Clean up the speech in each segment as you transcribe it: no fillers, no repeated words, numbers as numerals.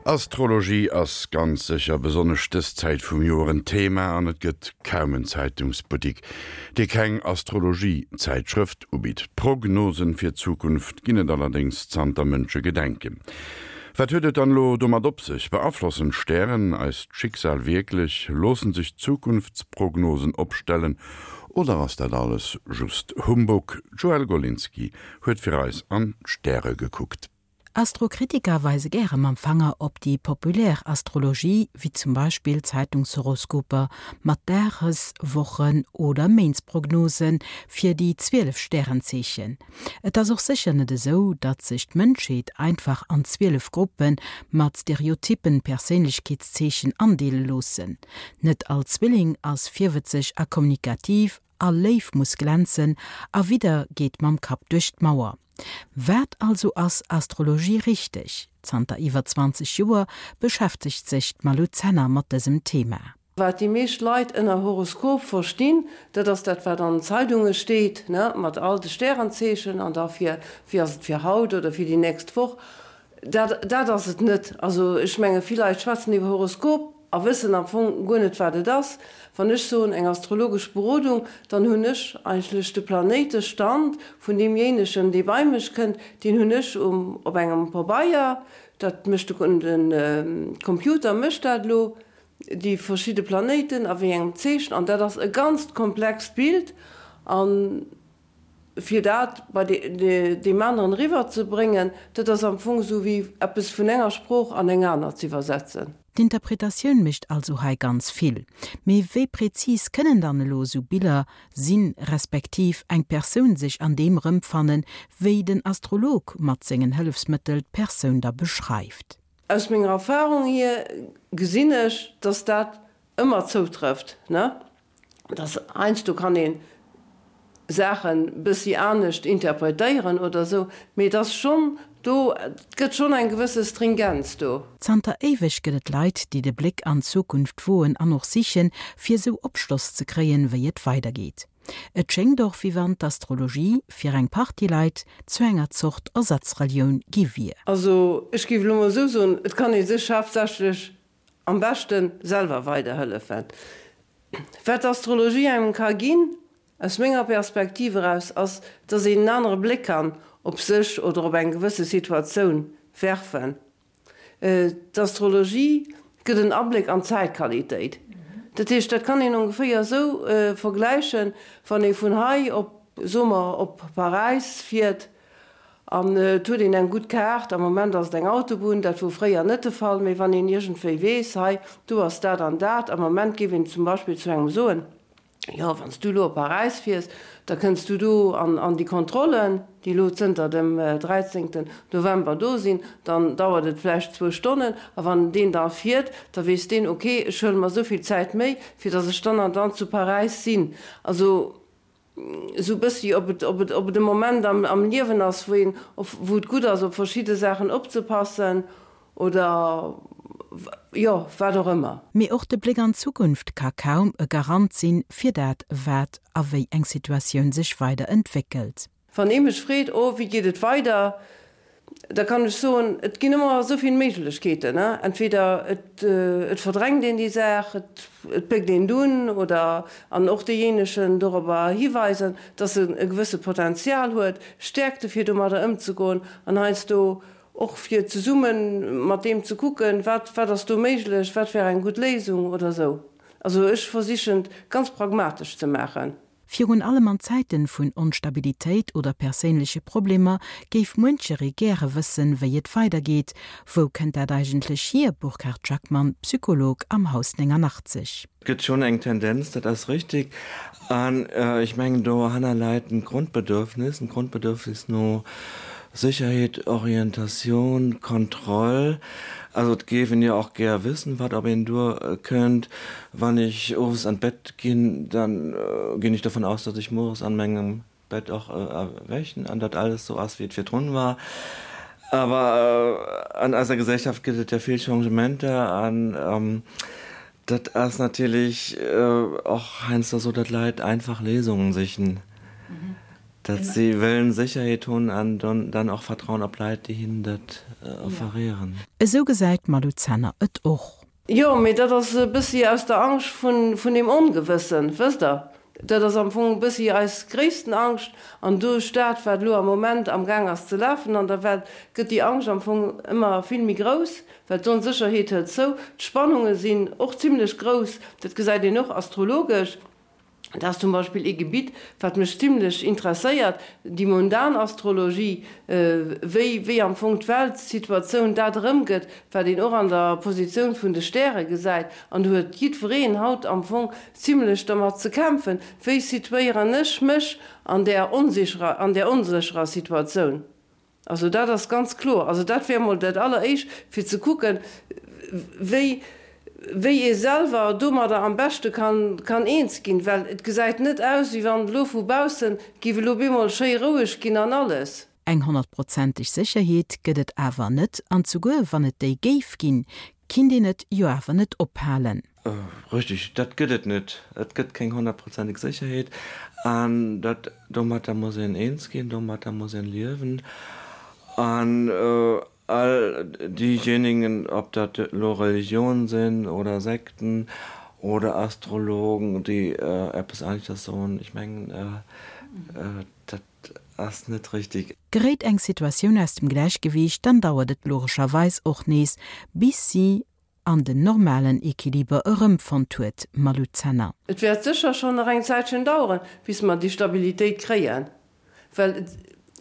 Astrologie ass ganz sécher besonnesch dës Zäit vum Joer en Thema an et gëtt kaum en Zeitungsbuttik, dee keng Astrologie-Zäitschrëft ubitt. Prognosen fir d'Zukunft ginn et allerdéngs zanter Mënschegedenken. Wat huet et dann elo domat op sech? Beaflossen d'Stären eist Schicksal wierklech? Loossen sech Zukunftsprognosen opstellen oder ass dat alles just Humbug? D'Joëlle Golinski huet fir eis an d'Stäre gekuckt. Astrokritiker weise gäre mam Fanger op déi populär Astrologie, wéi zum Beispill Zeitungshoroskoper mat Dages-, Wochen oder Méintsprognose fir déi 12 Stärenzeechen. Et ass och sécher net esou, datt sech d'Mënschheet einfach an 12 Gruppe mat stereotyppen Perséinlechkeetszeechen andeele loossen. Net all Zwilling ass virwëtzeg a kommunikativ, all Léiw muss glänzen a Widder geet mam Kapp duerch d'Mauer. Wat also ass Astrologie richteg? Zanter iwwer 20 Joer beschäftegt sech d'Malou Zenner mat dësem Thema. Wat déi meescht Leit ënner Horoskop verstinn, dat ass dat wat an den Zeidunge steet, ne, mat all de Stärenzeechen an da fir wéi ass et fir haut oder fir déi nächst Woch. Dat dat ass et net. Also ech menge vill Leit schwätzen iwwer Horoskop, A wëssen am Fong guer net, wat et ass. Wann ech soen, eng astrologesch Berodung, dann hunn ech eigentlech de Planéitestand vun deemjéinegen, dee bei mech kënnt, deen hunn ech um, op engem Pabeier, dat mécht de, de Computer mécht dat elo, déi verschidde Planéiten a wéi engem Zeechen, an dat ass e ganzt komplext Bild. An fir dat bei deem aneren eriwwer ze bréngen, dat ass am Fong esou wéi eppes vun enger Sprooch an eng aner z'iwwersetzen. D'Interpretatioun mécht also hei ganz vill. Mee wéi präzis kënnen dann elo esou Biller sinn, respektiv eng Persoun sech an deem erëmfannen, wéi den Astrolog mat sengen Hëllefsmëttel d'Persoun da beschreift? Aus menger Erfahrung hier gesinn ech, dass dat ëmmer zoutrëfft, ne? Dass heiansdo kann ee Saachen bëssi anescht interpretéieren oder esou, mee et ass schonn do, et gëtt schonn eng gewësse Stringenz do. Zanter éiweg gëtt et Leit, déi de Bléck an d'Zukunft woen an och sichen, fir esou Opschloss ze kréien, wéi et weidergeet. Et schéngt och, wéi wann d'Astrologie fir eng Partie Leit zu enger Zort Ersatzrelioun gi wier. Also ech géif elo mol esou soen, et kann ee sech haaptsächlech Am beschten selwer weiderhëllefen. Wat d'Astrologie engem ka ginn, aus menger Perspektiv eraus, ass, dass een en anere Bléck kann op sech oder op eng gewësse Situatioun werfen. D'Astrologie gëtt en Abléck an d'Zäitqualitéit. Dat heescht, dat kann een ongeféier esou vergläichen, wann ee vun hei op, soe mer, op Paräis fiert, An et huet een eng gutt Kaart, am Moment ass et eng Autobunn, dat wor fréier net de Fall, mee wann een iergendwéi weess, hei do ass dat an dat, am Moment géif een zum Beispill zu engem soen, jo wann s du elo op Paräis fiers, da kënns du do an an déi Kontrollen, déi elo zënter dem 13 November do sinn, dann dauert et vläicht zwou Stonnen, a wann deen da fiert, da weess deen, ok, ech huele mer esou vill Zäit méi, fir datt ech dann an dann zu Paräis sinn. Also esou e bëssi, ob et, ob et, ob et e Moment am, am Liewen ass, wou een, op, wou et gutt ass, op verschidde Saachen opzepassen oder, jo, wat och ëmmer. Mee och de Bléck an d'Zukunft ka kaum e Garant sinn, fir dat, wat a wéi eng Situatioun sech weider entwéckelt. Wann ee mech freet, oh, wéi geet et weider, da kann ech soen, et ginn ëmmer esou vill Méiglechkeeten. Entweder et verdrängt een déi Saach, et péckt een et un oder, an och deejéinegen dorobber hiweisen, dass en e gewësse Potenzial huet, Stäerkte fir domadder ëmzegoen an heiansdo och fir zesumme mat deem ze kucken, wat wat ass do méiglech, wat wär eng gutt Léisung oder esou. Also ech versichen et ganz pragmatesch ze maachen. Virun allem an Zäiten vun Onstabilitéit oder perséinleche Problemer géif muencheree gäre wëssen, wéi et weidergeet. Wou kënnt dat eigentlech hier? Burkhard Jackmann, Psycholog am Haus 89. Et gëtt schonn eng Tendenz, dat ass richtig. An ech mengen, dohanner läit en Grondbedürfnis, en Grondbedürfnis no Sécherheet, Orientatioun, Kontroll. Also et géif een jo och gär wëssen, wat op een duerkënnt. Wann ech owes an d'Bett ginn, dann ginn ech dovun aus, datt ech mueres an mengem Bett och erwächen an datt alles sou ass, wéi et virdrun war. Awer an eiser Gesellschaft gëtt et ja vill Changementer an dat ass natierlech och heiansdo sou, datt Leit einfach Léisungen sichen. Datt si wëllen Sécherheet hunn an dann och vertrauen op Leit, déi hinnen dat offerieren. Esou gesäit d'Malou Zenner et och. Jo, mee dat ass e bëssi aus der Angscht vun deem Ongewëssen, wësst Der. Dat ass am Fong e bëssi eis gréissten Angscht. An duerch dat, wat elo am Moment amgaang ass ze lafen an der Welt, gëtt déi Angscht am Fong ëmmer vill méi grouss, well d'Onsécherheet hëlt zou. D'Spannunge sinn och zimlech grouss, dat gesäit een och astrologesch. Dat ass zum Beispill ee Gebitt, wat mech zimlech interesséiert, déi mundan Astrologie, wéi wéi am Fong d'Weltsituatioun dat erëmgëtt, wat een och an der Positioun vun de Stäre gesäit. An do huet jiddwereen haut am Fong zimlech dermat ze kämpfen, wéi situéieren ech mech an där onsicherer, an där onsécherer Situatioun. Also dat ass ganz kloer. Also dat wär emol dat Alleréischt, fir ze kucken, wéi, wéi ee selwer domadder am beschte kann, kann eens ginn. Well et gesäit net aus, wéi wann elo vu baussen géif elo bemol schéi roueg ginn an alles. Eng honnertprozenteg Sécherheet gëtt et awer net, an zuguer wann et déi géif ginn, kinnt een et jo awer net ophalen. Richtig, dat gëtt et net. Et gëtt keng honnertprozenteg Sécherheet an dat, domatter muss een eens ginn, domatter muss een liewen. An all diejenigen, ob dat elo Religionen sinn oder Sekten oder Astrologen, déi eppes aneschters soen, ech mengen, dat ass net richtig. Geréit eng Situatioun aus dem Gläichgewiicht, dann dauert et logescherweis och nees, bis si an den normalen Equiliber erëmfonnt huet, Malou Zenner. Et wäert sécher schonn nach eng Zäitchen daueren, bis mer déi Stabilitéit kréien, well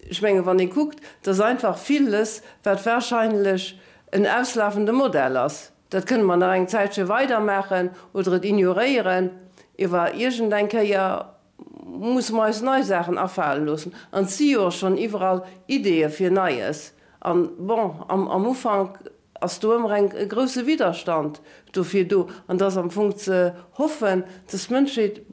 ech mengen, wann ee kuckt, dass einfach villes, wat wahrscheinlech en auslafende Modell ass, dat kënne mer nach eng Zäitche weidermaachen oder et ignoréieren, iewer iergendeng Kéier musse mer eis nei Saachen afale loossen. An et si jo och schonn iwwerall Ideeë fir Neies. An, bon, am Ufank ass do ëmmer eng e grousse Widderstand dofir do an et ass am Fong ze hoffen, dass d'Mënschheet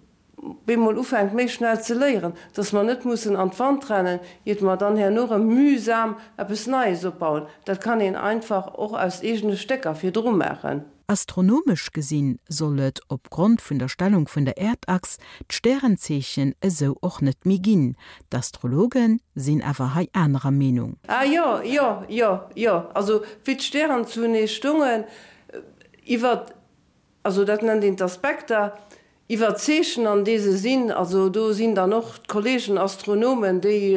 bemol ufänkt méi schnell ze léieren, dass mer net mussen an d'Wand rennen, iert mer dann herno erëm mühsam eppes Neies opbauen. Dat kann een einfach och aus eegene Stécker virdru maachen. Astronomesch gesinn soll et, op Grond vun der Stellung vun der Äerdachs, d'Stärenzeechen esou och net méi ginn. D'Astrologe sinn awer hei anerer Meenung. Ah jo, jo, jo, jo, also wéi d'Stären zunee stungen, iwwer, also dat nennt een d'Aspekter, Iwwer d'Zeechen an dee se sinn, also do sinn dann och d'Kollegen Astronomen, déi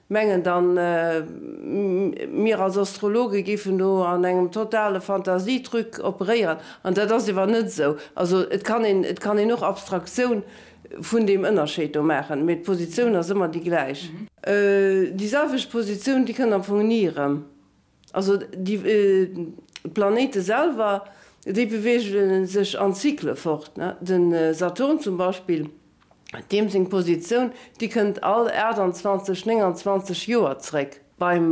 mengen dann, mir als Astrologe géifen do an engem totale Fantasietruc operéieren, an dat ass ewer net esou. Also et kann een, et kann een och Abstraktioun vun deem Ënnerscheed do maachen, mee d'Positioun ass ëmmer déi gläich. Déi selwecht Positioun, déi kënnt am Fong ni erëm. Also déi Planéite selwer, déi beweege sech an Zykle fort. De Saturn zum Beispill, deem seng Positioun, déi kënnt all 28, 29 Joer zréck. Beim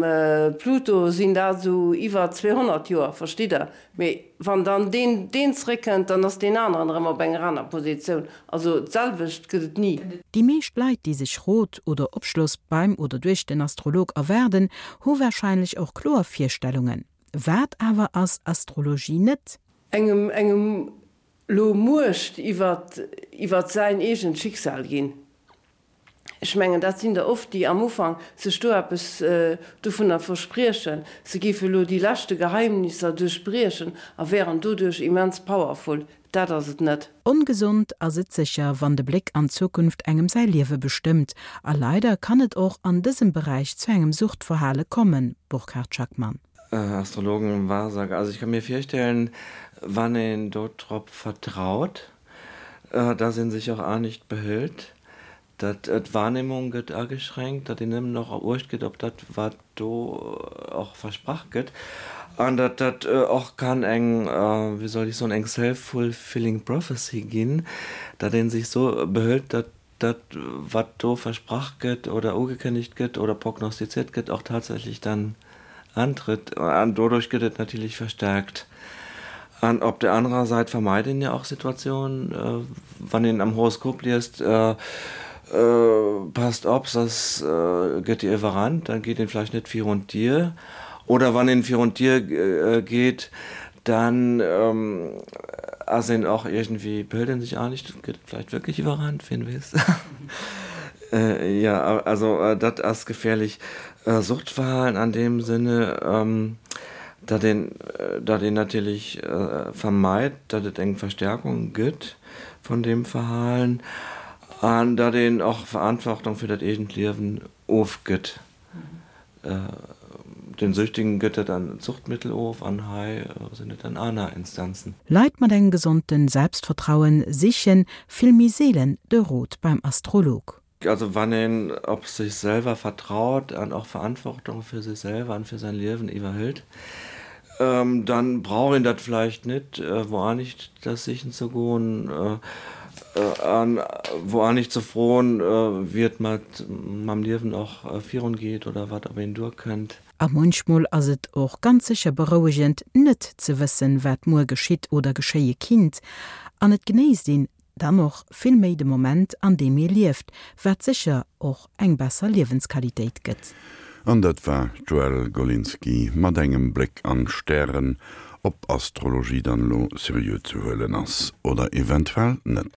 Pluto sinn dat esou iwwer 200 Joer, verstitt Der? Mee wann dann deen deen zréckkënnt, dann ass deen aneren erëm op enger aner Positioun. Also d'selwecht gëtt et ni. Déi meescht Leit, déi sech Rot oder Opschloss beim oder duerch den Astrolog erwaarden, hu warscheinlech och kloer Virstellungen. Wat awer ass Astrologie net? Engem engem lo Muecht iwwert iwwert säin eegent Schicksal ginn. Ech mengen, dat sinn der oft, déi am Ufank sech do eppes dovunner verspriechen, se géife lo déi leschte Geheimnisser duerchbriechen a wären doduerch immens powerful. Dat ass et net. Ongesond ass et sécher, wann de Bléck an d'Zukunft engem säi Liewe bestëmmt. A leider kann et och an dësem Beräich zu engem Suchtverhale kommen, Burkhard Schackmann. Astrologen, Wahrsager, also ich kann mir virstellen, wann een do drop vertraut, dass een sech och anescht behëlt, datt d'Wahrnehmung gëtt ageschränkt, datt een nëmmen och Uecht gëtt op dat, wat do och versprach gëtt, an datt dat och kann eng, wéi soll ech soen, eng self-fulfilling prophecy ginn, datt ee sech esou behëlt, datt dat, wat do versprach gëtt oder ugekënnegt gëtt oder prognostiziert gëtt, och tatsächlech dann antritt. An doduerch gëtt et natierlech verstärkt. An op der anerer Säit vermeit een jo och Situatiounen, wann een am Horoskop liest, passt op, soss gëtt Dir iwwerrannt, dann geet een vläicht net virun d'Dier. Oder wann een virun d'Dier geet, dann ass een och iergendwéi, behëlt een sech anescht, gëtt vläicht wierklech iwwerrannt, wien weess. Ja, also dat ass gefährlich Suchtverhalen an deem Sinne, datt een, datt een natierlech vermeit, datt et eng Verstärkung gëtt vun deem Verhalen an datt een och Verantwortung fir dat eegent Liewen ofgëtt. Den Süchtigen gëtt dat an Zuchtmittel of an hei sinn et dann aner Instanzen. Leit mat engem gesonde Selbstvertrauen sichen vill méi seelen de Rot beim Astrolog. Also wann een op sech selwer vertraut an och Verantwortung fir sech selwer an fir säin Liewen iwwerhëlt, dann brauch een dat vläicht net wou anescht das sichen ze goen an wou anescht ze froen, wéi et mat mam Liewen och virun geet oder wat op een duer kënnt. A munchmol ass et och ganz sécher berouegend, net ze wëssen, wat muer geschitt oder geschéie kinnt, an et genéisst een dann och vill méi de Moment, an deem ee lieft, wat sécher och eng besser Liewensqualitéit gëtt. An dat war d'Joëlle Golinski mat engem Bléck an d'Stären, ob Astrologie dann elo seriö ze huelen ass oder eventuell net.